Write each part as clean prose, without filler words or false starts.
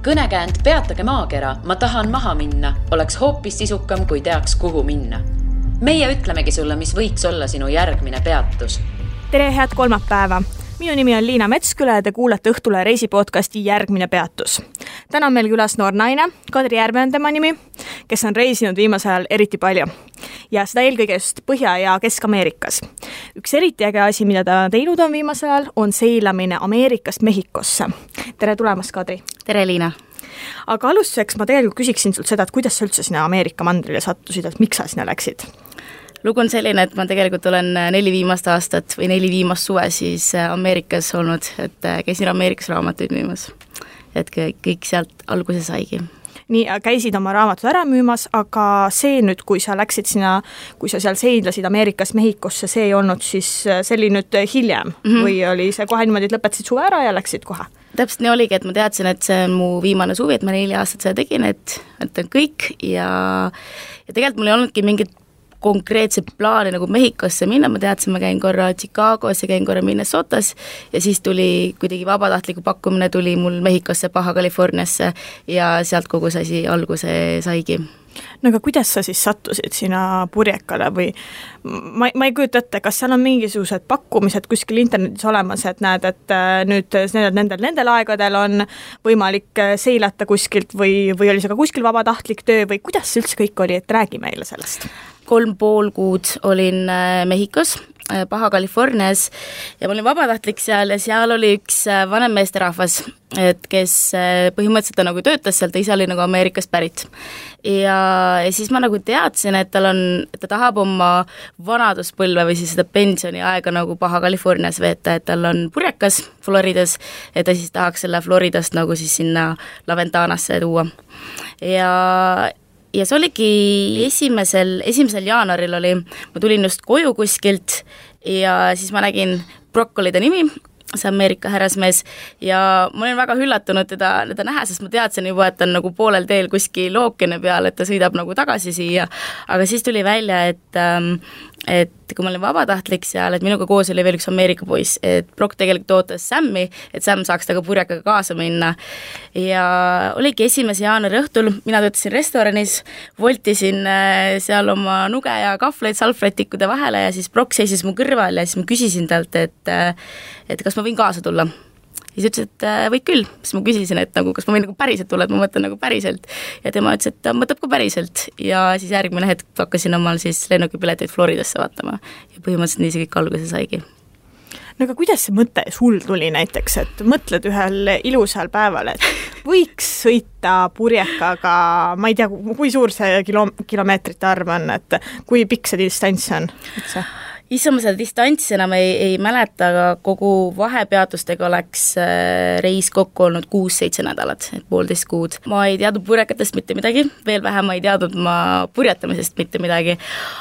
Kõnekäänd Peatage maakera, ma tahan maha minna, oleks hoopis sisukam, kui teaks, kuhu minna. Meie ütlemegi sulle, mis võiks olla sinu järgmine peatus. Tere, head kolmapäeva! Minu nimi on Liina Metsküla ja te kuulete Õhtule reisipodcasti Järgmine peatus. Täna on meil külas noor naine, Kadri Järve on tema nimi, kes on reisinud viimasel ajal eriti palju. Ja seda eelkõige just Põhja- ja Kesk-Ameerikas. Üks eriti äge asi, mida ta teinud on viimasel ajal, on seilamine Ameerikast Mehhikosse. Tere tulemast, Kadri! Tere, Liina! Aga alustuseks ma tegelikult küsiksin sult seda, et kuidas sa üldse sinna Ameerika mandrile sattusid, et miks sa sinna läksid? Lugu on selline, et ma tegelikult olen 4 viimast aastat või 4 viimast suve siis Ameerikas olnud, et käisin Ameerikas raamatuid müümas. Et kõik sealt alguse saigi. Nii, käisid oma raamatud ära müümas, aga see nüüd, kui sa läksid sinna, kui sa seal seidlasid Ameerikas Mehhikosse, see ei olnud siis, see oli nüüd hiljem või oli see kohe niimoodi, et lõpetasid suve ära ja läksid kohe? Täpselt nii oligi, et ma teadsin, et see on mu viimane suvi, et ma 4 aastat seda tegin, et on kõik ja tegelikult mul ei olnudki mingit konkreetse plaani nagu Mehhikosse minna, ma teadsin, ma käin korra Chicagos ja käin korra Minnesotas ja siis tuli kuidagi vabatahtliku pakkumine tuli mul Mehhikosse, Baja Californiasse ja sealt kogu see asi alguse saigi. No aga kuidas sa siis sattusid sinna Purjekale või ma ei kujuta ette, kas seal on mingisugused pakkumised kuskil internetis olemas, et näed, et nüüd nendel aegadel on võimalik seilata kuskilt või oli see ka kuskil vabatahtlik töö või kuidas see üldse kõik oli, et räägi meile sellest? 3,5 kuud olin Mehhikos, Baja Californias ja ma olin vabatahtlik seal ja seal oli üks vanem meesterahvas, et kes põhimõtteliselt ta nagu töötas seal, ta ise oli nagu Ameerikast pärit. Ja siis ma nagu teadsin, et ta tahab oma vanaduspõlve või siis seda pensioni aega nagu Baja Californias veeta, et tal on purjekas Floridas, et ta siis tahaks selle Floridast nagu siis sinna Laventanasse tuua. Ja see oligi esimesel jaanuaril oli, ma tulin just koju kuskilt ja siis ma nägin Broccolide nimi, see Ameerika härrasmees ja ma olin väga üllatunud teda näha, sest ma teadsin juba, et ta on nagu poolel teel kuskil ookeani peal, et ta sõidab nagu tagasi siia, aga siis tuli välja, et kui ma olin vabatahtlik seal, et minuga koos oli veel üks Ameerika poiss, et Brock tegelikult ootas Sammi, et Sam saaks taga purjakaga kaasa minna ja oligi 1. jaanuari õhtul, mina töötasin restoranis, voltisin seal oma nuge ja kahvleid salvrätikkude vahele ja siis Brock seisis mu kõrval ja siis ma küsisin talt, et kas ma võin kaasa tulla. Ja siis ütles, et võid küll, siis ma küsisin, et nagu, kas ma võin nagu päriselt tulla, et ma mõtlen nagu päriselt ja tema ütles, et ta mõtleb ka päriselt ja siis järgmine hetk hakkasin omal siis lennukipileteid Floridasse vaatama ja põhimõtteliselt nii see kõik alguse saigi. No aga kuidas see mõte sul tuli näiteks, et mõtled ühel ilusal päeval, et võiks sõita purjekaga, ma ei tea, kui suur see kilomeetrite arv on, et kui pikk see distants on üldse? Issa ma seda distantsi enam ei mäleta, aga kogu vahepeatustega oleks reis kokku olnud 6-7 nädalat, et 1,5 kuud. Ma ei teadnud purjekatest mitte midagi, veel vähem ma ei teadnud ma purjetamisest mitte midagi,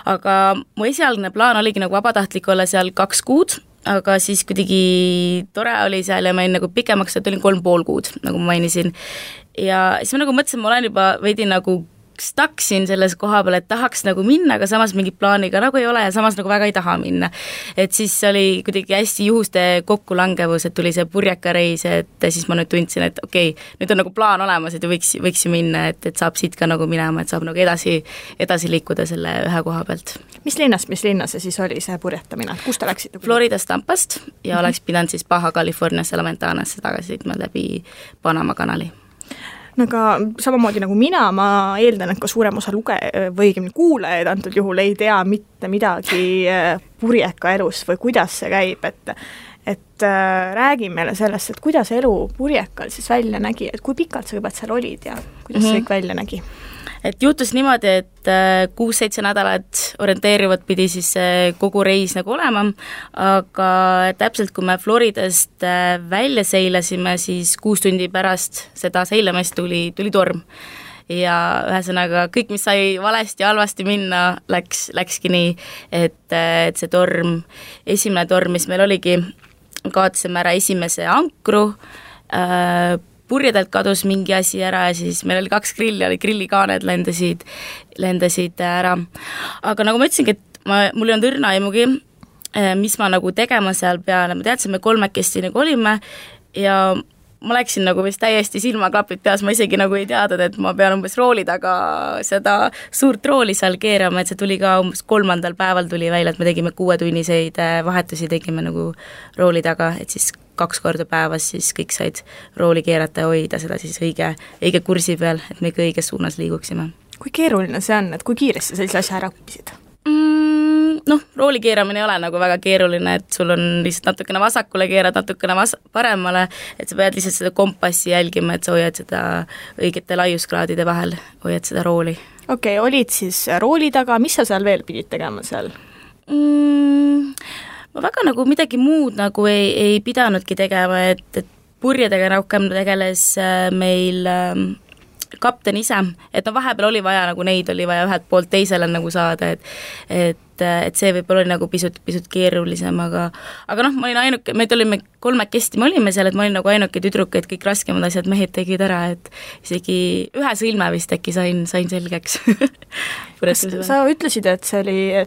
aga mu esialgne plaan oligi nagu vabatahtlik olla seal 2 kuud, aga siis kuidagi tore oli seal ja ma olin nagu pikemaks, et olin 3,5 kuud, nagu ma mainisin. Ja siis ma nagu mõtlesin, ma olen juba veidi nagu staksin selles koha peal, et tahaks nagu minna, aga samas mingi plaaniga nagu ei ole ja samas nagu väga ei taha minna. Et siis oli kuidagi hästi juhuste kokkulangevus, et tuli see purjekareis, et siis ma nüüd tundsin, et okei, nüüd on nagu plaan olemas, et võiks ju minna, et saab siit ka nagu minema, et saab nagu edasi liikuda selle ühe koha pealt. Mis linnas see siis oli see purjetamine? Kus te läksite? Floridas Tampast ja oleks pidanud siis Baja Californiasse Laventanasse tagasi sõitma läbi Panama kanali. No aga samamoodi nagu ma eeldan, et ka suurem osa või kuulajaid antud juhul ei tea mitte midagi purjeka elus või kuidas see käib, et räägi meile sellest, et kuidas elu purjekal siis välja nägi, et kui pikalt sa juba seal olid ja kuidas see kõik välja nägi? Et juhtus niimoodi, et 6-7 nädalat orienteerivad pidi siis kogu reis nagu olema, aga täpselt kui me Floridast välja seilasime, siis 6 tundi pärast seda seilamist tuli torm. Ja ühesõnaga kõik, mis sai valesti ja halvasti minna, läkski nii, et see torm, esimene torm, mis meil oligi, kaotasime ära esimese ankru, purjedelt kadus mingi asi ära ja siis meil oli 2 grilli, grillikaaned lendasid ära. Aga nagu ma ütlesingi, et mul ei olnud õrna aimugi, mis ma nagu tegema seal peale, ma teadsin, me 3 nagu olime ja ma läksin nagu vist täiesti silmaklapid peas, ma isegi nagu ei teadnud, et ma pean umbes rooli taga seda suurt rooli seal keerama, et see tuli ka umbes 3. päeval tuli välja, et me tegime 6-tunniseid vahetusi, tegime nagu rooli taga, et siis 2 korda päevas siis kõik said rooli keerata ja hoida seda siis õige kursi peal, et me ikka õiges suunas liiguksime. Kui keeruline see on, et kui kiiresti sellise asja ära õppisid? Noh, rooli keeramine ei ole nagu väga keeruline, et sul on lihtsalt natukene vasakule keerad, natukene paremale, et sa pead lihtsalt seda kompassi jälgima, et sa hoiad seda õigete laiuskraadide vahel, hoiad seda rooli. Okei, olid siis rooli taga, mis sa seal veel pidid tegema seal? Ma väga nagu midagi muud nagu ei pidanudki tegema, et purjedega rohkem tegeles meil kapten ise, et vahepeal oli vaja nagu neid oli vaja ühelt poolt teisele nagu saada, et see võib-olla oli nagu pisut keerulisem, aga ma olin ainuke, meid olime 3 me olime seal, et ma olin nagu ainuke tüdruk, et kõik raskemad asjad mehed tegid ära, et isegi ühe sõlme vist äkki sain selgeks. Sa ütlesid, et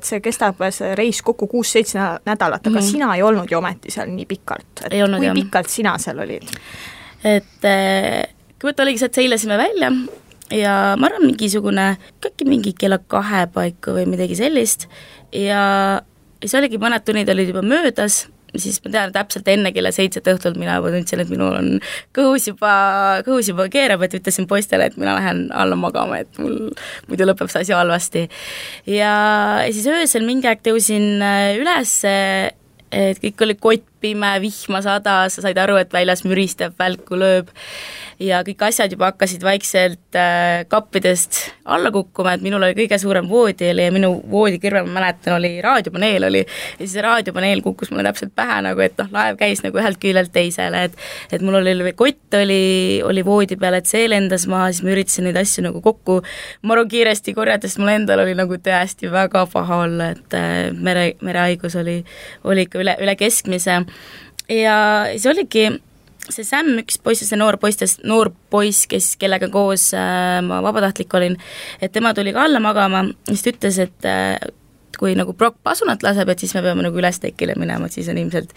see kestab see reis kokku 6-7 nädalat, aga sina ei olnud ju ometi seal nii pikalt. Ei olnud, kui pikalt sina seal olid? Et kõigepealt oligi see, et seilasime välja ja ma arvan mingi kella 2 paiku või midagi sellist ja see oligi mõned tunnid olid juba möödas, siis ma tean täpselt enne kella 7 õhtult mina juba tundsin, et minul on kõhus juba keerab, et ütlesin poistele, et mina lähen alla magama, et mul muidu lõpeb see asi halvasti. Ja siis öösel mingi aeg tõusin üles, et kõik oli kottpime, vihma sadas, sa said aru, et väljas müristab, välku lööb ja kõik asjad juba hakkasid vaikselt kappidest alla kukkuma, et minul oli kõige suurem voodi ja minu voodi kõrval, ma mäletan, oli raadiopaneel ja siis see raadiopaneel kukkus mulle täpselt pähe nagu, et laev käis nagu ühelt küljelt teisele, et mul oli kott oli voodi peal, et see lendas maha, siis ma üritasin neid asju nagu kokku maru kiiresti korjata, sest mul endal oli nagu tõesti väga paha olla, et merehaigus oli ikka üle keskmise ja siis oligi see Sam, üks poiss, see noor poiss, kellega koos ma vabatahtlik olin, et tema tuli ka alla magama, siis ta ütles, et kui nagu Brock pasunat laseb, et siis me peame nagu üles tekile minema, et siis on ilmselt,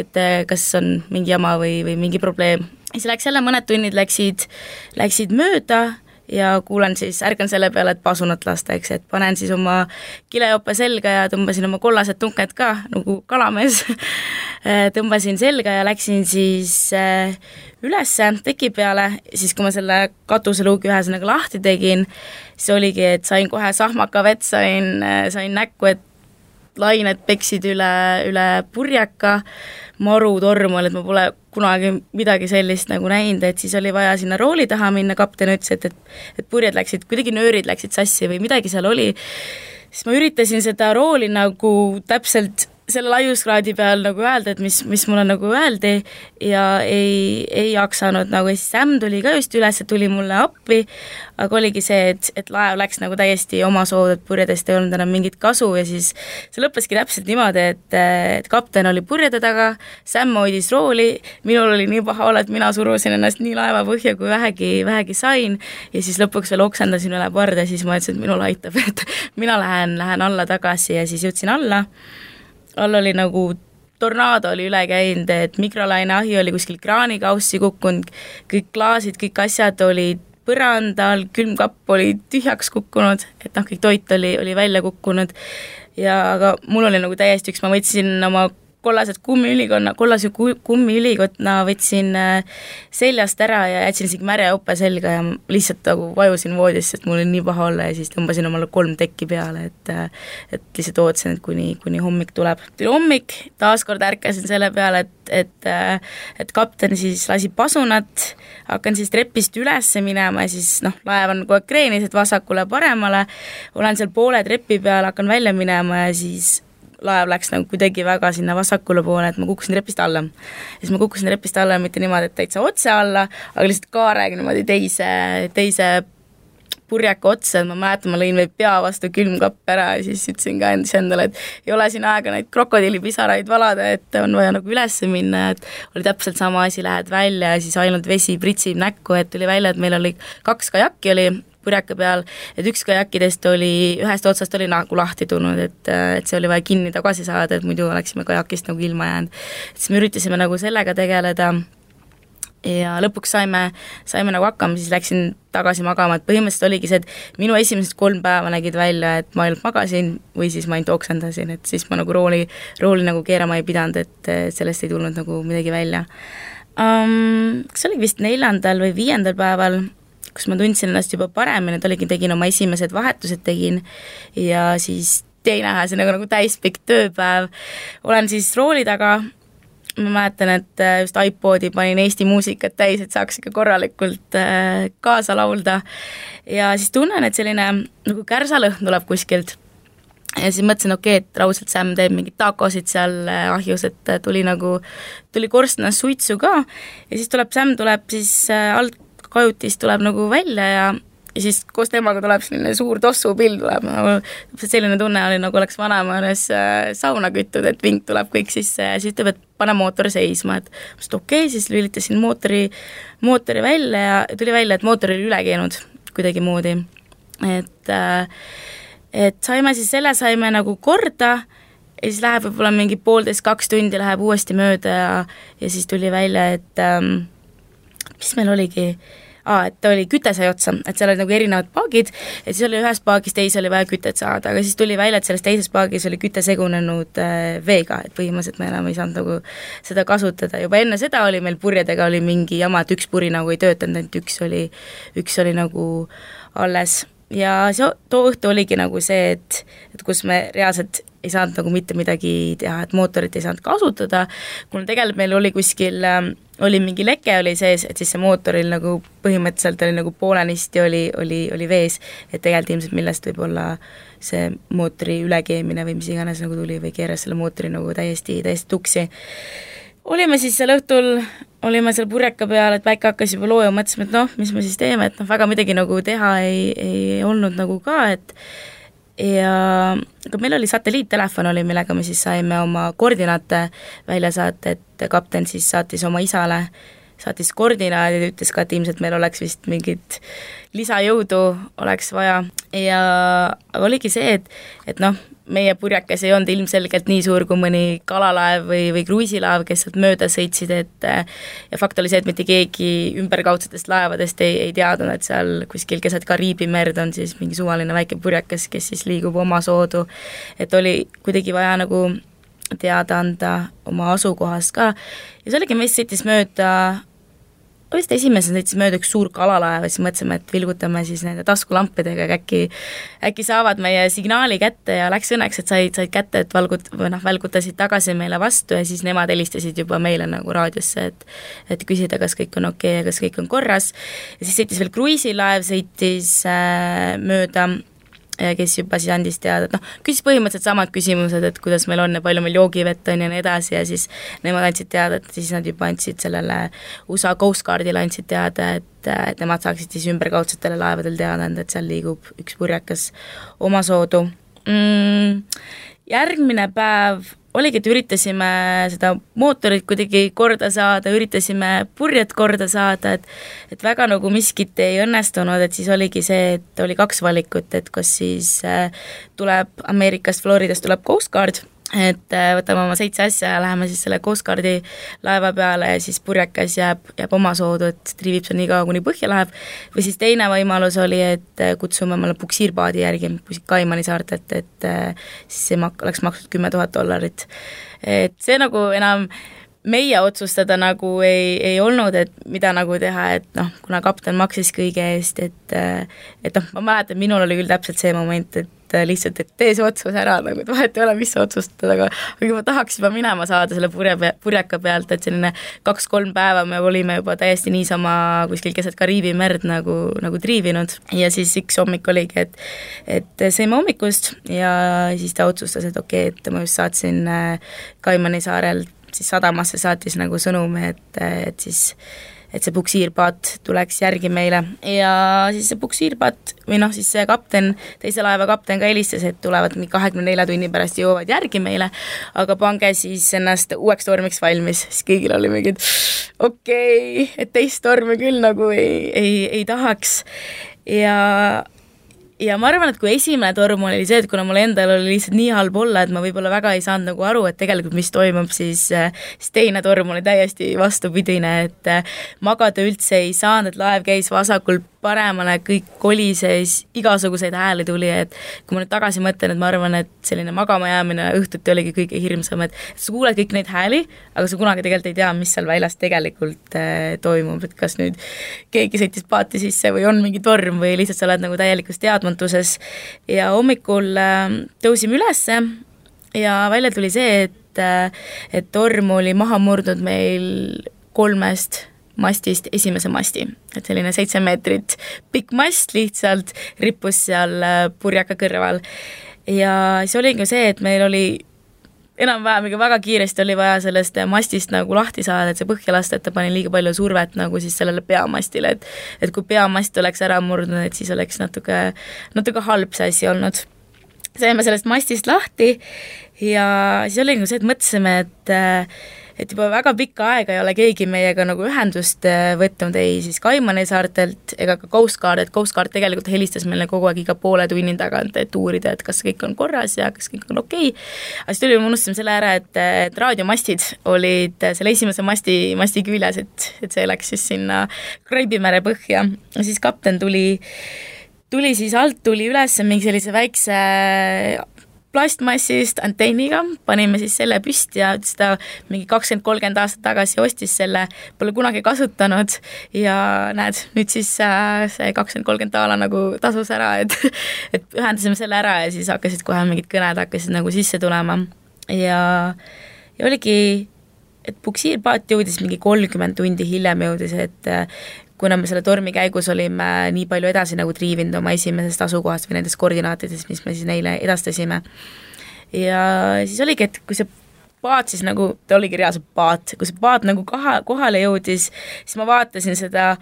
et kas on mingi jama või mingi probleem. Siis läks jälle mõned tunnid läksid mööda ja ärkan selle peale, et pasunat lasta, eks, et panen siis oma kilejope selga ja tõmbasin oma kollased tunked ka, nagu kalamees tõmbasin selga ja läksin siis ülesse teki peale, siis kui ma selle katuseluugi ühesõnaga lahti tegin, siis oligi, et sain kohe sahmaka vett, sain näkku, et lained peksid üle purjeka, maru torm oli, et ma pole kunagi midagi sellist nagu näinud, et siis oli vaja sinna rooli taha minna, kapten ütles, et purjed läksid, kuidagi nöörid läksid sassi või midagi seal oli, siis ma üritasin seda rooli nagu täpselt selle laiuskraadi peal nagu öelda, et mis mulle nagu öeldi ja ei jaksanud nagu, siis Sam tuli ka just üles, tuli mulle appi, aga oligi see, et laev läks nagu täiesti oma sood, et purjedest ei olnud enam mingit kasu ja siis see lõppeski täpselt niimoodi, et kapten oli purjede taga, Sam hoidis rooli, minul oli nii paha olla, et mina surusin ennast nii laeva põhja, kui vähegi sain ja siis lõpuks veel oksendasin üle parda ja siis ma ütlesin, et minul aitab, et mina lähen alla tagasi ja siis jõudsin alla oli nagu tornaado oli üle käinud, et mikrolaineahi oli kuskil kraanikaussi kukkunud, kõik klaasid, kõik asjad olid põrandal, külmkapp oli tühjaks kukkunud, et kõik toit oli välja kukkunud ja aga mul oli nagu täiesti ma võtsin oma kollase kummiülikotna võtsin seljast ära ja jätsin isegi märja jope selga ja lihtsalt nagu vajusin voodisse, et mul oli nii paha olla ja siis tõmbasin omale 3 tekki peale, et lihtsalt ootasin, et kuni hommik tuleb. Tuli hommik, taaskord ärkasin selle peale, et kapten siis lasi pasunat, hakkan siis trepist üles minema ja siis laev on kogu aeg kreenis, et vasakule paremale, olen seal poole trepi peal, hakkan välja minema ja siis laev läks nagu kuidagi väga sinna vasakule poole, et ma kukkusin trepist alla. Ja siis ma kukkusin trepist alla mitte niimoodi, et täitsa otse alla, aga lihtsalt kaarega niimoodi teise purjaka otsa, et ma mäletan, ma lõin veel pea vastu külmkapp ära ja siis ütlesin ka endale, et ei ole siin aega neid krokodillipisaraid valada, et on vaja nagu üles minna, et oli täpselt sama asi, lähed välja ja siis ainult vesi pritsib näkku, et tuli välja, et meil oli 2 kajakki oli purjaka peal, et üks kajakkidest ühest otsast oli nagu lahti tulnud, et see oli vaja kinni tagasi saada, et muidu oleksime kajakist nagu ilma jäänud. Siis me üritasime nagu sellega tegeleda ja lõpuks saime nagu hakkama, siis läksin tagasi magama, et põhimõtteliselt oligi see, et minu esimesed 3 päeva nägid välja, et ma ainult magasin või siis ma ainult oksendasin, et siis ma nagu rooli nagu keerama ei pidanud, et sellest ei tulnud nagu midagi välja. Kas oligi vist 4. või 5. päeval, kus ma tundsin ennast juba paremini, et tegin oma esimesed vahetused tegin ja siis teine see nagu täispikk tööpäev. Olen siis rooli taga, ma mäletan, et just iPodi panin Eesti muusikat täis, et saaks ikka korralikult kaasa laulda ja siis tunnen, et selline nagu kärsalõhn tuleb kuskilt ja siis mõtlesin, et raudselt Sam teeb mingid takosid seal ahjus, et tuli korstnas suitsu ka ja siis Sam tuleb siis alt kajutist tuleb nagu välja ja siis koos temaga tuleb selline suur tossupill tuleb, nagu selline tunne oli, nagu oleks vanaema juures sauna küttud, et vink tuleb kõik sisse ja siis ütleb, et pane mootor seisma, et siis lülitasin mootori välja ja tuli välja, et mootor oli üle käinud kuidagi moodi. Et saime nagu korda ja siis läheb võib-olla mingi 1,5–2 tundi läheb uuesti mööda ja siis tuli välja, et mis meil oligi, et ta oli küte sai otsa, et seal oli nagu erinevad paagid, et siis oli ühes paagis teise oli vaja kütet saada, aga siis tuli välja, et selles teises paagis oli küte segunenud veega, et põhimõtteliselt me enam ei saanud nagu seda kasutada. Juba enne seda oli meil purjedega oli mingi jama, et üks puri nagu ei töötanud, et üks oli nagu alles. Ja too õhtu oligi nagu see, et kus me reaalselt ei saanud nagu mitte midagi teha, et mootorit ei saanud kasutada, kuna tegelikult meil oli kuskil oli mingi leke oli sees, et siis see mootoril nagu põhimõtteliselt oli nagu poolenisti oli vees, et tegelikult ilmselt millest võib olla see mootori ülekeemine või mis iganes nagu tuli või keeras selle mootori nagu täiesti tuksi. Olime siis seal õhtul, olime seal purjeka peal, et päike hakkas juba looja, mõtlesime, et mis me siis teeme, et väga midagi nagu teha ei olnud nagu ka, aga meil oli satelliittelefon oli, millega me siis saime oma koordinaate välja saata, et kapten siis saatis oma isale, saatis koordinaadid ja ütles ka, et ilmselt meil oleks vist mingit lisajõudu oleks vaja ja oligi see, et meie purjakas ei olnud ilmselgelt nii suur kui mõni kalalaev või kruiisilaev, kes sealt mööda sõitsid, ja fakt oli see, et mitte keegi ümberkaudsetest laevadest ei teadnud, et seal kuskil keset Kariibi merd on siis mingi suvaline väike purjakas, kes siis liigub oma soodu, et oli kuidagi vaja nagu teada anda oma asukohast ka ja see oligi, meist sõitis mööda vist esimesel sõitis mööda üks suur kalalaev ja siis mõtlesime, et vilgutame siis nende taskulampidega, äkki saavad meie signaali kätte ja läks õnneks, et said kätte, et välgutasid tagasi meile vastu ja siis nemad helistasid juba meile nagu raadiosse, et küsida, kas kõik on okei ja kas kõik on korras ja siis sõitis veel kruiisilaev, sõitis mööda kes juba siis andis teada, et küsis põhimõtteliselt samad küsimused, et kuidas meil on ja palju meil joogivett on ja nii edasi ja siis nemad andsid teada, et siis nad juba andsid sellele USA Coast Guardile andsid teada, et nemad saaksid siis ümberkaudsetele laevadel teada anda, et seal liigub üks purjekas omasoodu. Järgmine päev oligi, et üritasime seda mootorit kuidagi korda saada, üritasime purjet korda saada, et väga nagu miskit ei õnnestunud, et siis oligi see, et oli 2 valikut, et kas siis tuleb Ameerikast, Floridast tuleb Coast Guard, et võtame oma 7 asja ja läheme siis selle Coast Guardi laeva peale ja siis purjekas jääb omasoodu, et triivib seal nii kaua, kuni põhja läheb, või siis teine võimalus oli, et kutsume omale puksiirpaadi järgi Kaimani saartelt, et siis see oleks maksnud $10,000. Et see nagu enam meie otsustada nagu ei olnud, et mida nagu teha, et kuna kapten maksis kõige eest, et ma mäletan, minul oli küll täpselt see moment, et lihtsalt, et tee see otsus ära, nagu vahet ei ole, mis sa otsustad, aga ma tahaks juba minema saada selle purjeka pealt, et selline 2-3 päeva me olime juba täiesti niisama kuskil keset Kariibi merd nagu triivinud ja siis üks hommik oligi, et sõime hommikust ja siis ta otsustas, et okei, et ma just saatsin Kaimani saarelt siis sadamasse saatis nagu sõnumi, et see puksiirpaat tuleks järgi meile ja siis see puksiirpaat või siis see kapten, teise laeva kapten ka helistas, et tulevad 24 tunni pärast jõuavad järgi meile, aga pange siis ennast uueks tormiks valmis, siis kõigil oli mingid okei, et teist tormi küll nagu ei tahaks ja ja ma arvan, et kui esimene torm oli see, et kuna mul endal oli lihtsalt nii halb olla, et ma võib-olla väga ei saanud nagu aru, et tegelikult mis toimub, siis teine torm oli täiesti vastupidine, et magada üldse ei saanud, et laev käis vasakul paremale, kõik kolises, igasuguseid hääli tuli, et kui ma nüüd tagasi mõtlen, et ma arvan, et selline magama jäämine õhtuti oligi kõige hirmsam, et sa kuuled kõik neid hääli, aga sa kunagi tegelikult ei tea, mis seal väljas tegelikult toimub, et kas nüüd keegi sõitis paati sisse või on mingi torm või lihtsalt sa oled nagu täielikus teadmatuses. Ja hommikul tõusime ülesse ja välja tuli see, et torm oli maha murdnud meil 3 mastist esimese masti, et selline 7 meetrit pikk mast lihtsalt rippus seal purjaka kõrval. Ja see oli ka see, et meil oli enam-vähem väga kiiresti oli vaja sellest mastist nagu lahti saada, et see põhja lasta, et ta pani liiga palju survet nagu siis sellele peamastile, et kui peamast oleks ära murdnud, et siis oleks natuke halb see asi olnud. Saime sellest mastist lahti ja siis oli see, et mõtlesime, et juba väga pikka aega ei ole keegi meiega nagu ühendust võtnud ei siis Kaimani saartelt ega ka Coast Guard, et Coast Guard tegelikult helistas meile kogu aeg iga poole tunni tagant, et uurida, et kas kõik on korras ja kas kõik on okei. Aga siis me unustasime selle ära, et raadiomastid olid selle esimese masti küljes, et see läks siis sinna Kraibimere põhja. Ja siis kapten tuli siis alt, tuli üles mingi sellise väikse plastmassist antenniga, panime siis selle püsti ja ta mingi 20-30 aastat tagasi ostis selle, pole kunagi kasutanud ja näed, nüüd siis see 20-30 taala nagu tasus ära, et ühendasime selle ära ja siis hakkasid kohe mingid kõned hakkasid nagu sisse tulema ja oligi, et puksiirpaat jõudis mingi 30 tundi hiljem jõudis, et kuna me selle tormi käigus olime nii palju edasi nagu triivinud oma esimesest asukohast või nendest koordinaatidest, mis me siis neile edastasime. Ja siis oligi, et kui see paat siis nagu, ta oligi reaalselt paat, kui see paat nagu kohale jõudis, siis ma vaatasin seda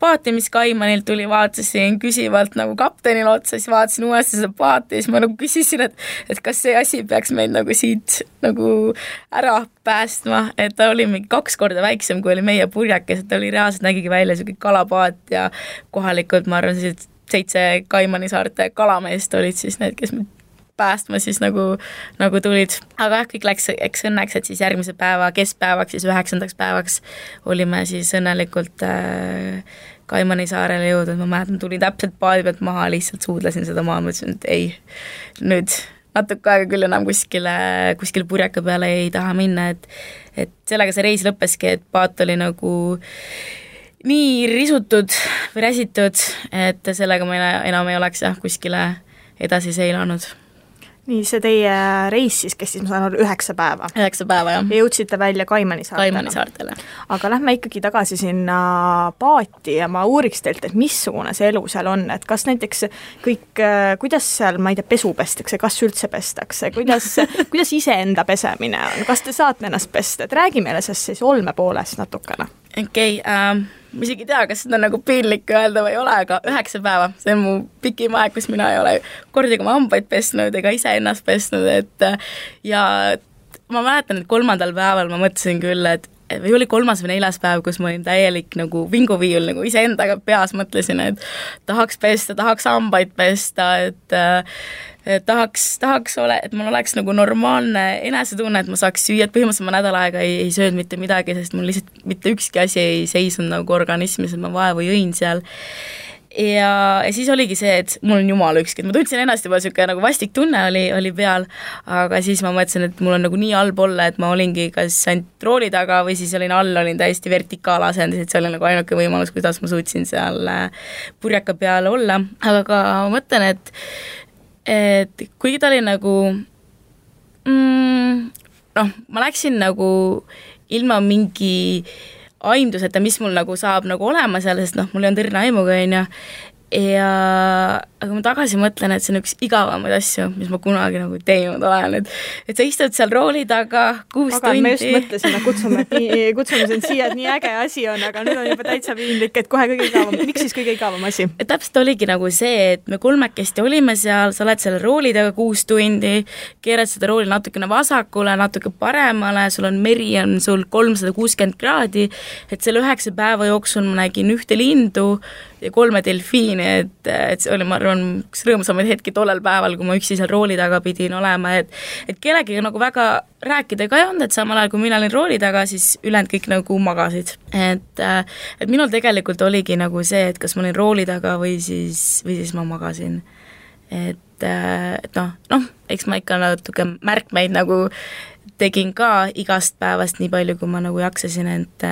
paati, mis Kaimanilt tuli, vaatasin küsivalt nagu kaptenil otsa, siis vaatasin uuesti seda paati ja siis ma nagu küsisin, et kas see asi peaks meid nagu siit nagu ära päästma, et ta oli mingi 2 korda väiksem, kui oli meie purjakes, et ta oli reaalselt nägigi välja selline kalapaat ja kohalikud, ma arvan, 7 Kaimani saarte kalameest olid siis need, kes päästma siis nagu tulid. Aga kõik läks eks õnneks, et siis järgmise päeva keskpäevaks, siis 9. päevaks olime siis õnnelikult Kaimani saarele jõudnud. Ma mäletan, tulin täpselt paadi pealt maha, lihtsalt suudlesin seda maha, mõtlesin, et ei, nüüd natuke aega küll enam kuskil purjaka peale ei taha minna, et sellega see reis lõppeski, et paat oli nagu nii risutud või räsitud, et sellega ma enam ei oleks kuskile edasi seilanud. Nii, see teie reis siis kestis, ma saan aru, 9 päeva. 9 päeva, jah. Ja jõudsite välja Kaimani saartele. Aga lähme ikkagi tagasi sinna paati ja ma uuriks teilt, et missugune see elu seal on, et kas näiteks kõik, kuidas seal, ma ei tea, pesu pestakse, kas üldse pestakse, kuidas iseenda pesemine on, kas te saate ennast pesta, et räägi meile sest siis olme poolest natukene. Okei, ma isegi ei tea, kas seda nagu piinlik öelda või ei ole, aga 9 päeva, see on mu pikim aeg, kus mina ei ole kordagi oma hambaid pesnud ega ise ennast pesnud, et ja ma mäletan, et 3. päeval ma mõtlesin küll, või oli 3. või 4. päev, kus ma olin täielik nagu vinguviiul, nagu iseendaga peas mõtlesin, et tahaks pesta, tahaks hambaid pesta, et tahaks et mul oleks nagu normaalne enesetunne, et ma saaks süüa, et põhimõtteliselt ma nädal aega ei söönud mitte midagi, sest mul lihtsalt mitte ükski asi ei seisnud nagu organismis, et ma vaevu jõin seal. Ja siis oligi see, et mul on jumala ükski, et ma tundsin ennast juba selline nagu vastik tunne oli peal, aga siis ma mõtlesin, et mul on nagu nii halb olla, et ma olingi kas ainult rooli taga või siis olin täiesti vertikaalasendis, et see oli nagu ainuke võimalus, kuidas ma suutsin seal purjaka peal olla, aga ka ma mõtlen, et kuigi ta oli nagu ma läksin nagu ilma mingi aimduseta, mis mul nagu saab nagu olema seal, sest mul ei on tõrna aimuga, aga ma tagasi mõtlen, et see on üks igavamaid asju, mis ma kunagi nagu teinud olen, et sa istud seal rooli taga 6 tundi. Me just mõtlesime, kutsume sind siia, et nii äge asi on, aga nüüd on juba täitsa piinlik, et kohe kõige igavam. Miks siis kõige igavam asi? Täpselt oligi nagu see, et me 3 olime seal, sa oled seal rooli taga 6 tundi, keerad seda rooli natukene vasakule, natuke paremale, sul on meri, on sul 360 kraadi, et selle 9 päeva jooksul ma nägin 1 lindu ja 3 delfiini, siiamaani, et see oli, ma arvan, üks rõõmsamaid hetki tollel päeval, kui ma üksi seal rooli taga pidin olema, et kellegiga nagu väga rääkida ka ei olnud, et samal ajal, kui mina olin rooli taga, siis ülejäänud kõik nagu magasid. Et minul tegelikult oligi nagu see, et kas ma olin rooli taga või siis ma magasin. Et noh, eks ma ikka natuke märkmeid nagu tegin ka igast päevast nii palju, kui ma nagu jaksasin, et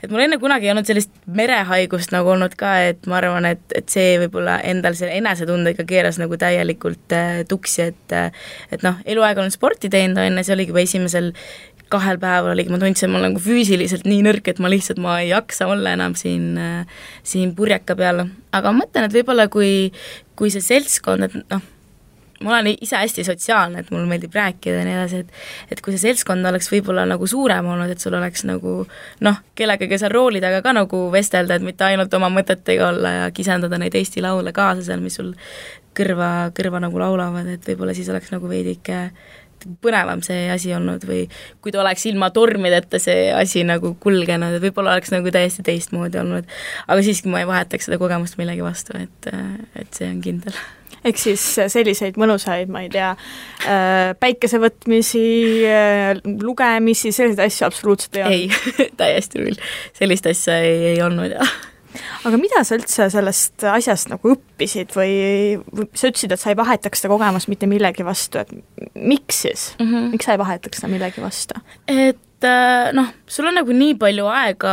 mul enne kunagi ei olnud sellist merehaigust nagu olnud ka, et ma arvan, et see võib-olla endal selle enesetundega keeras nagu täielikult tuksi, et noh, eluaeg olen sporti teinud, enne see oligi juba esimesel 2 päeval oligi, ma tundsin, et ma olen nagu füüsiliselt nii nõrk, et ma ei jaksa olla enam siin purjeka peal, aga ma mõtlen, et võib-olla kui see seltskond, et noh, ma olen ise hästi sotsiaalne, et mul meeldib rääkida ja nii edasi, et kui see seltskond oleks võib-olla nagu suurem olnud, et sul oleks nagu noh, kellegagi seal rooli taga ka nagu vestelda, et mitte ainult oma mõtetega olla ja kisendada neid Eesti laule kaasa seal, mis sul kõrva nagu laulavad, et võib-olla siis oleks nagu veidike põnevam see asi olnud või kui ta oleks ilma tormideta see asi nagu kulgenud, et võib-olla oleks nagu täiesti teistmoodi olnud, aga siiski ma ei vahetaks seda kogemust millegi vastu, et see on kindel. Ehk siis selliseid mõnusaid, ma ei tea, päikesevõtmisi, lugemisi, selliseid asju absoluutselt ei olnud? Ei, täiesti küll. Sellist asja ei olnud, jah. Aga mida sa üldse sellest asjast nagu õppisid või sa ütlesid, et sa ei vahetaks seda kogemust mitte millegi vastu, et miks siis? Miks sa ei vahetaks seda millegi vastu? Et noh, sul on nagu nii palju aega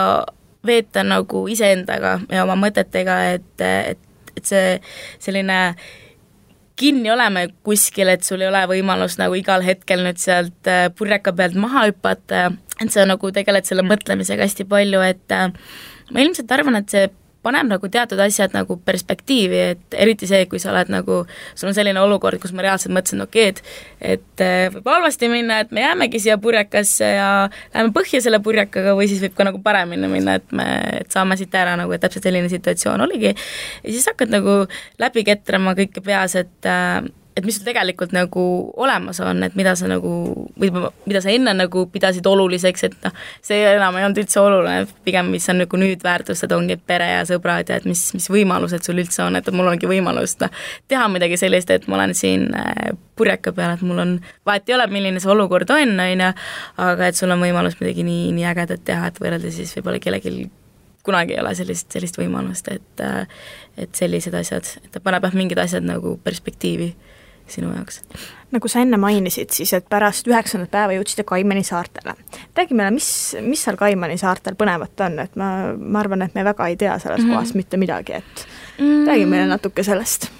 veeta nagu iseendaga ja oma mõtetega, et see selline kinni oleme kuskil, et sul ei ole võimalus nagu igal hetkel nüüd sealt purjeka pealt maha hüpata, et sa nagu tegeled selle mõtlemisega hästi palju, et ma ilmselt arvan, et see paneb nagu teatud asjad nagu perspektiivi, et eriti see, kui sa oled nagu, sul on selline olukord, kus ma reaalselt mõtlesin, et võib halvasti minna, et me jäämegi siia purjekasse ja läheme põhja selle purjekaga või siis võib ka nagu paremini minna, et saame siit ära nagu, et täpselt selline situatsioon oligi. Ja siis hakkad nagu läbi ketrama kõike peas, et mis sul tegelikult nagu olemas on, et mida sa nagu, või mida sa enne nagu pidasid oluliseks, et noh, see enam ei olnud üldse oluline, pigem mis on nagu nüüd väärtustad, ongi pere ja sõbrad ja et mis võimalused sul üldse on, et mul ongi võimalus teha midagi sellist, et ma olen siin purjeka peal, et mul on, vahet ei ole, milline see olukord on, aga et sul on võimalus midagi nii ägedat teha, et võrrelda siis võib-olla kellelgi kunagi ei ole sellist võimalust, et sellised asjad, et ta paneb mingid asjad nagu perspektiivi sinu jaoks. Nagu sa enne mainisid, siis et pärast 9. päeva jõudsite Kaimani saartele. Räägi meile, mis seal Kaimani saartel põnevat on, et ma arvan, et me väga ei tea selles kohas mitte midagi, et räägi meile natuke sellest.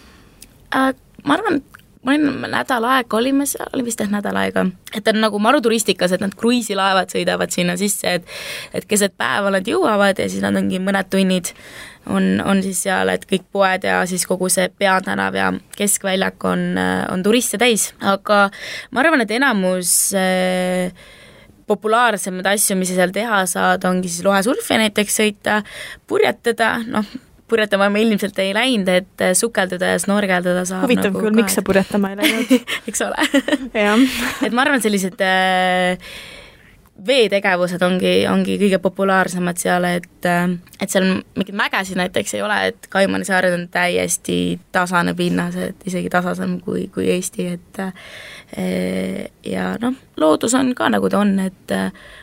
Ma arvan, ma olin nädal aega, olime seal, oli vist nädal aega, et on nagu maruturistikas, et nad kruiisilaevad sõidavad sinna sisse, et keset päeva nad jõuavad ja siis nad ongi mõned tunnid on siis seal, et kõik poed ja siis kogu see peatänav ja keskväljak on turiste täis, aga ma arvan, et enamus populaarsemaid asju, mis sa seal teha saad, ongi siis lohesurfi näiteks sõita, purjetada, noh, purjetama me ilmselt ei läinud, et sukelduda ja snorgeldada saab. Huvitav nagu küll, miks sa purjetama ei läinud? Eks ole. Et ma arvan, sellised veetegevused ongi kõige populaarsemad seal, et seal mingid mägesid näiteks ei ole, et Kaimani saared on täiesti tasane pinnas, et isegi tasasem kui Eesti, et ja noh, loodus on ka nagu ta on, et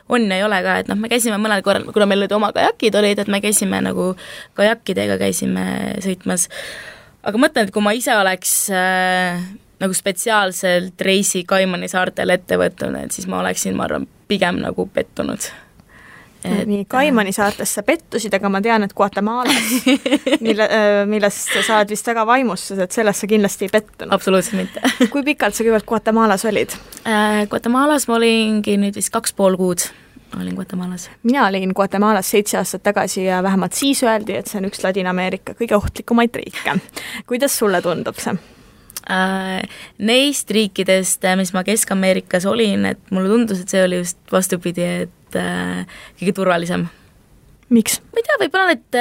on ja ei ole ka, et noh, me käisime mõnel korral, kuna meil olid oma kajakid olid, et me käisime nagu kajakkidega käisime sõitmas, aga mõtlen, et kui ma ise oleks nagu spetsiaalselt reisi Kaimani saartel ette võtnud, et siis ma oleksin, ma arvan, pigem nagu pettunud. Nii, Kaimani saartes sa pettusid, aga ma tean, et Guatemalas, millest sa oled vist väga vaimustus, et sellest sa kindlasti ei pettunud. Absoluutselt mitte. Kui pikalt sa kõigepealt Guatemalas olid? Guatemalas ma olingi nüüd vist 2,5 kuud. Olin Guatemalas. Mina olin Guatemalas 7 aastat tagasi ja vähemalt siis öeldi, et see on üks Ladina-Ameerika kõige ohtlikumaid riike. Kuidas sulle tundub see? Neist riikidest, mis ma Kesk-Ameerikas olin, et mulle tundus, et see oli just vastupidi, et kõige turvalisem. Miks? Ma ei tea, võib-olla need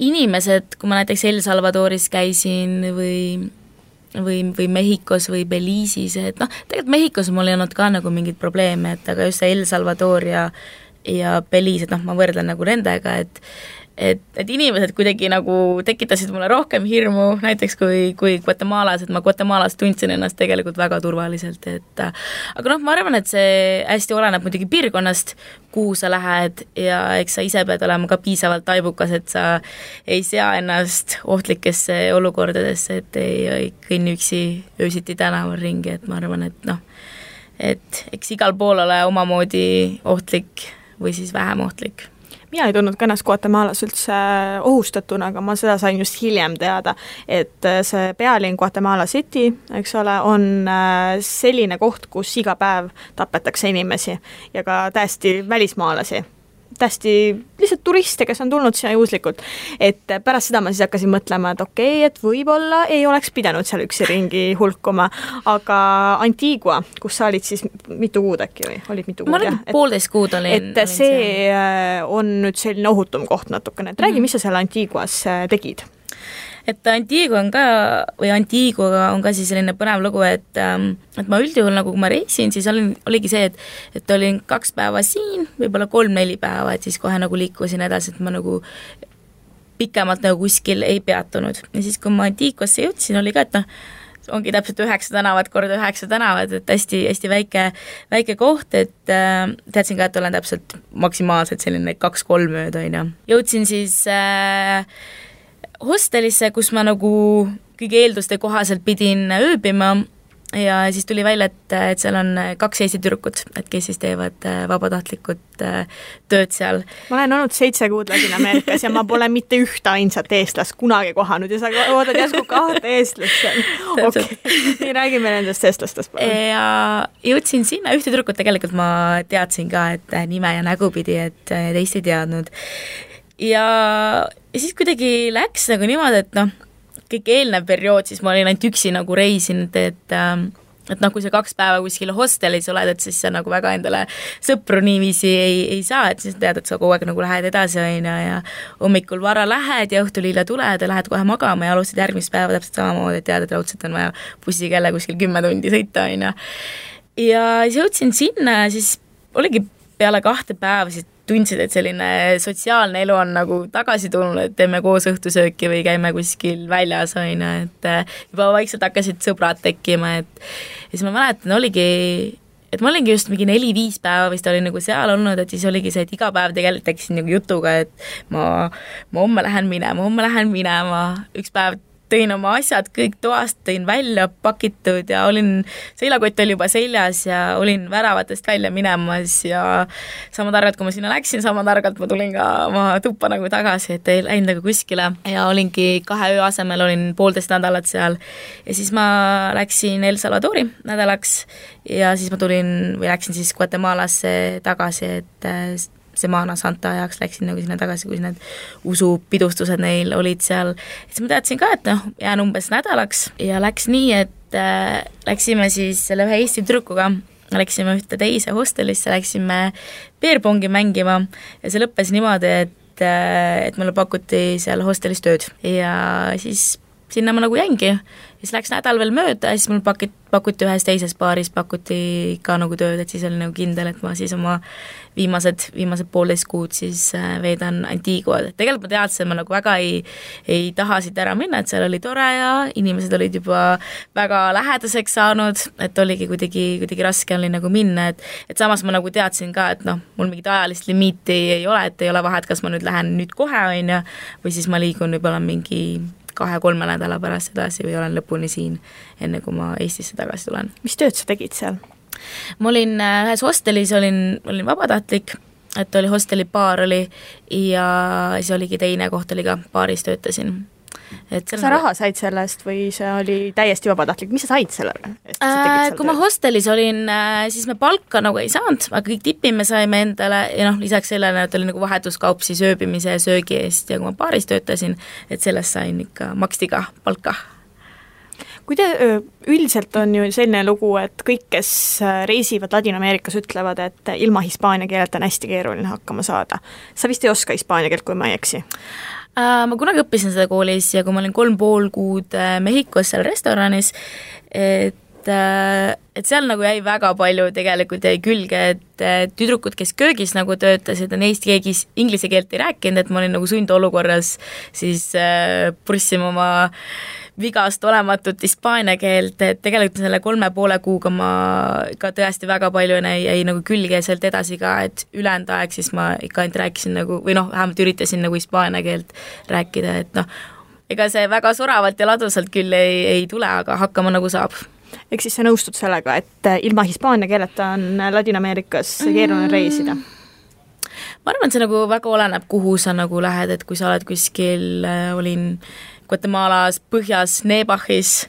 inimesed, kui ma näiteks El Salvadoris käisin või Mehhikos või Belize'is, et noh, tegelikult Mehhikos mul ei olnud ka nagu mingid probleeme, et aga just see El Salvador ja Belize, et noh, ma võrdlen nagu nendega, et inimesed kuidagi nagu tekitasid mulle rohkem hirmu, näiteks kui Guatemalas, et ma Guatemalas tundsin ennast tegelikult väga turvaliselt, et aga ma arvan, et see hästi oleneb muidugi piirkonnast, kuhu sa lähed ja eks sa ise pead olema ka piisavalt taibukas, et sa ei sea ennast ohtlikesse olukordadesse, et ei kõnni üksi öösiti tänaval ringi, et ma arvan, et eks igal pool ole omamoodi ohtlik või siis vähem ohtlik. Mina ei tundnud ka ennast Guatemalas üldse ohustatuna, aga ma seda sain just hiljem teada, et see pealinn Guatemala City, eks ole, on selline koht, kus iga päev tapetakse inimesi ja ka täiesti välismaalasi. Täiesti lihtsalt turiste, kes on tulnud sinna juhuslikult. Et pärast seda ma siis hakkasin mõtlema, et okei, et võib-olla ei oleks pidanud seal üksi ringi hulkuma, aga Antigua, kus sa olid siis mitu kuud äkki või? Olid mitu kuud? Ma olin 1,5 kuud olin. Et see on nüüd selline ohutum koht natukene. Et räägi, mis sa seal Antiguas tegid? Et Antigua on ka siis selline põnev lugu, et ma üldjuhul nagu kui ma reisin, siis oligi see, et olin 2 päeva siin, võib-olla 3-4 päeva, et siis kohe nagu liikusin edasi, et ma nagu pikemalt nagu kuskil ei peatunud. Ja siis kui ma Antiguasse jõudsin, oli ka, et ongi täpselt 9 tänavat korda 9 tänavat, et hästi väike koht, et teadsin ka, et olen täpselt maksimaalselt selline 2-3 ööd, on ju. Jõudsin siis hostelisse, kus ma nagu kõigi eelduste kohaselt pidin ööbima ja siis tuli välja, et seal on 2 Eesti tüdrukut, et kes siis teevad vabatahtlikud tööd seal. Ma olen olnud 7 kuud Ladina-Ameerikas ja ma pole mitte ühte ainsat eestlast kunagi kohanud ja sa oodad järsku 2 eestlast seal. Okei, räägime nendest eestlastest. Ja jõudsin sinna, ühte tüdrukut tegelikult ma teadsin ka, et nime ja nägu pidi, et teist ei teadnud. Ja siis kuidagi läks nagu niimoodi, et kõik eelnev periood, siis ma olin ainult üksi nagu reisinud, et kui sa 2 päeva kuskil hostelis oled, et siis sa nagu väga endale sõpru niiviisi ei saa, et siis tead, et sa kogu aeg nagu lähed edasi ja hommikul vara lähed ja õhtul hilja tuled ja lähed kohe magama ja alustad järgmist päeva täpselt samamoodi, et tead, et raudselt on vaja bussiga jälle kuskil 10 tundi sõita, on ju. Ja siis jõudsin sinna ja siis oligi peale 2 päeva siis tundsid, et selline sotsiaalne elu on nagu tagasi tulnud, et teeme koos õhtusööki või käime kuskil väljas, on ju, et juba vaikselt hakkasid sõbrad tekkima, et ja siis ma mäletan, et ma olingi just mingi 4-5 päeva vist olin nagu seal olnud, et siis oligi see, et iga päev tegelikult tekkisin nagu jutuga, et ma homme lähen minema, üks päev tõin oma asjad kõik toast, tõin välja pakitud ja seilakott oli juba seljas ja olin väravatest välja minemas ja sama targalt, kui ma sinna läksin, sama targalt ma tulin ka oma tuppa nagu tagasi, et ei läinud nagu kuskile ja olingi 2 öö asemel, olin 1,5 nädalat seal ja siis ma läksin El Salvadori nädalaks ja siis ma läksin siis Guatemalasse tagasi, et Semana Santa ajaks läksin nagu sinna tagasi, kus need usupidustused neil olid seal. Siis ma teadsin ka, et jään umbes nädalaks ja läks nii, et läksime siis selle ühe Eesti tüdrukuga, läksime ühte teise hostelisse, läksime beerpongi mängima ja see lõppes niimoodi, et mulle pakuti seal hostelis tööd ja siis sinna ma nagu jäingi. Ja siis läks nädal veel mööda ja siis mul pakuti ühes teises baaris, pakuti ka nagu tööd, et siis oli nagu kindel, et ma siis oma viimased 1,5 kuud siis veedan Antiguad. Tegelikult ma teadsin, et ma nagu väga ei taha siit ära minna, et seal oli tore ja inimesed olid juba väga lähedaseks saanud, et oligi kuidagi raske oli nagu minna, et samas ma nagu teadsin ka, et mul mingit ajalist limiiti ei ole, et ei ole vahet, kas ma nüüd lähen nüüd kohe, on ju, või siis ma liigun võib-olla mingi 2-3 nädala pärast edasi või olen lõpuni siin, enne kui ma Eestisse tagasi tulen. Mis tööd sa tegid seal? Ma olin ühes hostelis, olin vabatahtlik, et oli hosteli baar oli ja siis oligi teine koht oli ka, baaris töötasin. Kas sa raha said sellest või see oli täiesti vabatahtlik? Mis sa said selle? Kui ma hostelis olin, siis me palka nagu ei saanud, aga kõik tipi me saime endale ja lisaks sellele, et oli nagu vahetuskaup siis ööbimise ja söögi eest ja kui ma baaris töötasin, et sellest sain ikka, maksti ka palka. Üldiselt on ju selline lugu, et kõik, kes reisivad Ladina-Ameerikas, ütlevad, et ilma hispaania keelt on hästi keeruline hakkama saada. Sa vist ei oska hispaania keelt, kui ma ei eksi? Ma kunagi õppisin seda koolis ja kui ma olin 3,5 kuud Mehhikos seal restoranis, et et seal nagu jäi väga palju tegelikult jäi külge, et tüdrukud, kes köögis nagu töötasid, neist keegi inglise keelt ei rääkinud, et ma olin nagu sundolukorras siis purssima oma vigast olematut hispaania keelt, et tegelikult selle 3,5 kuuga ma ka tõesti väga palju jäi nagu külge ja sealt edasi ka, et ülejäänud aeg siis ma ikka ainult rääkisin nagu, või noh, vähemalt üritasin nagu hispaania keelt rääkida, et noh, ega see väga soravalt ja ladusalt küll ei tule, aga hakkama nagu saab. Ehk siis sa nõustud sellega, et ilma hispaania keeleta on Ladina-Ameerikas keeruline reisida? Ma arvan, et see nagu väga oleneb, kuhu sa nagu lähed, et kui sa oled kuskil, olin Guatemalas põhjas Nebahis,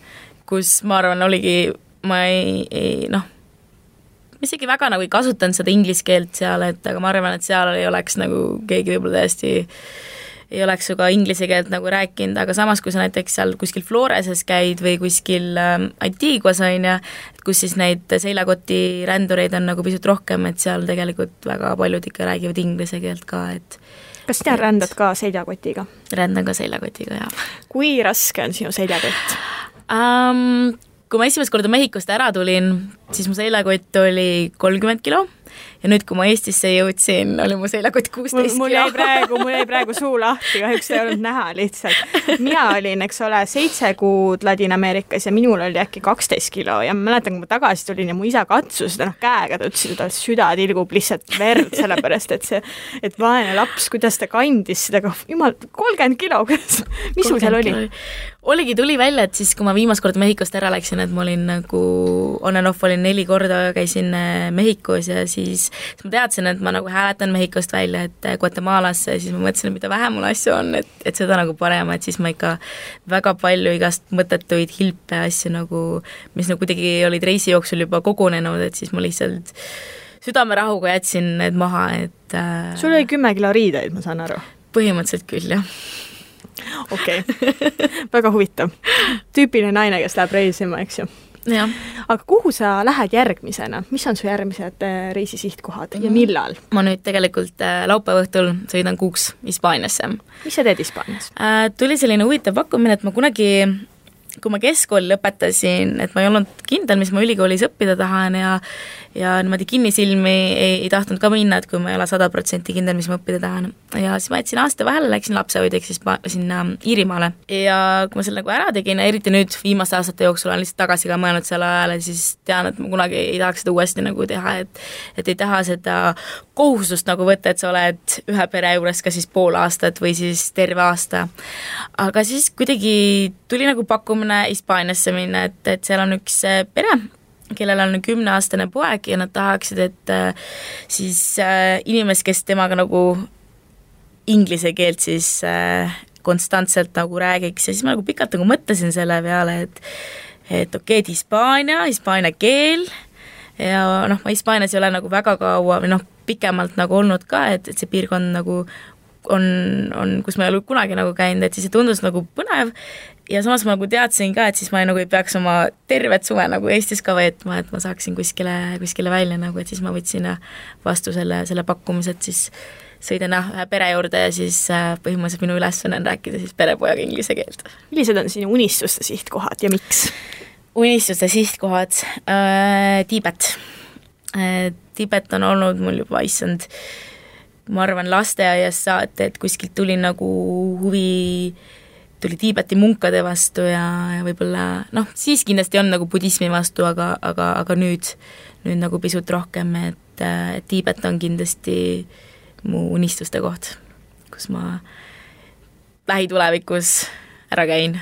kus ma arvan, oligi, ma noh, ma isegi väga nagu ei kasutanud seda inglise keelt seal, et aga ma arvan, et seal ei oleks nagu keegi võib-olla tõesti ei oleks ju ka inglise keelt nagu rääkinud, aga samas, kui sa näiteks seal kuskil Floreses käid või kuskil Antiguas on ja, kus siis neid seljakoti rändureid on nagu pisut rohkem, et seal tegelikult väga paljud ikka räägivad inglise keelt ka, et kas sina rändad ka seljakotiga? Rändan ka seljakotiga, jah. Kui raske on sinu seljakott? Kui ma esimest korda Mehhikost ära tulin, siis mu seljakott oli 30 kilo ja nüüd, kui ma Eestisse jõudsin, oli mu seljakott 16 mul jäi praegu suu lahti, kahjuks ei olnud näha lihtsalt. Mina olin, eks ole, 7 kuud Ladina-Ameerikas ja minul oli äkki 12 kilo ja ma mäletan, kui ma tagasi tulin ja mu isa katsus seda käega, ta ütles, et süda tilgub lihtsalt verd, sellepärast et vaene laps, kuidas ta kandis seda, jumal, 30 kilo, mis sul seal oli? Tuli välja, et siis, kui ma viimast korda Mehhikost ära läksin, et ma olin nagu on and off, olin 4 korda, käisin Mehhikos ja siis ma teadsin, et ma nagu hääletan Mehhikost välja, et Guatemalasse, siis ma mõtlesin, et mida vähem mul asju on, et seda nagu parem, et siis ma ikka väga palju igast mõttetuid hilpe asju nagu, mis nagu kuidagi olid reisi jooksul juba kogunenud, et siis ma lihtsalt südamerahuga jätsin need maha, et sul oli 10 kilo riideid, ma saan aru? Põhimõtteliselt küll, jah. Okei. Väga huvitav. Tüüpiline naine, kes läheb reisima, eks ju? Ja. Aga kuhu sa lähed järgmisena? Mis on su järgmised reisisihtkohad ja millal? Ma nüüd tegelikult laupäeva õhtul sõidan kuuks Hispaaniasse. Mis sa teed Hispaanias? Tuli selline huvitav pakkumine, et ma kunagi, kui ma keskkooli lõpetasin, et ma ei olnud kindel, mis ma ülikoolis õppida tahan ja niimoodi kinnisilmi ei tahtnud ka minna, et kui ma ei ole 100% kindel, mis ma õppida tahan. Ja siis ma jätsin aasta vahele, läksin lapsehoidjaks siis sinna Iirimaale. Ja kui ma selle nagu ära tegin, eriti nüüd viimaste aastate jooksul olen lihtsalt tagasi ka mõelnud selle ajale, siis tean, et ma kunagi ei tahaks seda uuesti nagu teha, et ei taha seda kohustust nagu võtta, et sa oled ühe pere juures ka siis pool aastat või siis terve aasta. Aga siis kuidagi tuli nagu pakkumine Hispaaniasse minna, et seal on üks pere, kellel on 10-aastane poeg ja nad tahaksid, et siis inimest, kes temaga nagu inglise keelt siis konstantselt nagu räägiks ja siis ma nagu pikalt nagu mõtlesin selle peale, et okei, et hispaania keel ja noh, ma Hispaanias ei ole nagu väga kaua või noh, pikemalt nagu olnud ka, et see piirkond nagu on, kus ma ei ole kunagi nagu käinud, et siis see tundus nagu põnev ja samas ma nagu teadsin ka, et siis ma nagu ei peaks oma tervet suve nagu Eestis ka veetma, et ma saaksin kuskile välja nagu, et siis ma võtsin vastu selle pakkumise, et siis sõidan ühe pere juurde ja siis põhimõtteliselt minu ülesanne on rääkida siis perepojaga inglise keelt. Millised on sinu unistuste sihtkohad ja miks? Unistuste sihtkohad, Tiibet. Tiibet on olnud mul juba issand, ma arvan lasteaias saate, et kuskilt tuli nagu huvi, tuli Tiibeti munkade vastu ja võib-olla noh, siis kindlasti on nagu budismi vastu, aga nüüd nagu pisut rohkem, et Tiibet on kindlasti mu unistuste koht, kus ma lähitulevikus ära käin.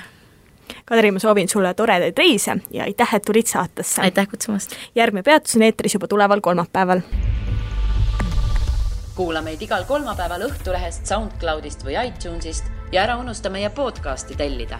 Kadri, ma soovin sulle toredaid reise ja aitäh, et tulid saatesse. Aitäh kutsumast. Järgmine peatus on eetris juba tuleval kolmapäeval. Kuula meid igal kolmapäeval Õhtulehest, SoundCloudist või iTunesist ja ära unusta meie podcasti tellida.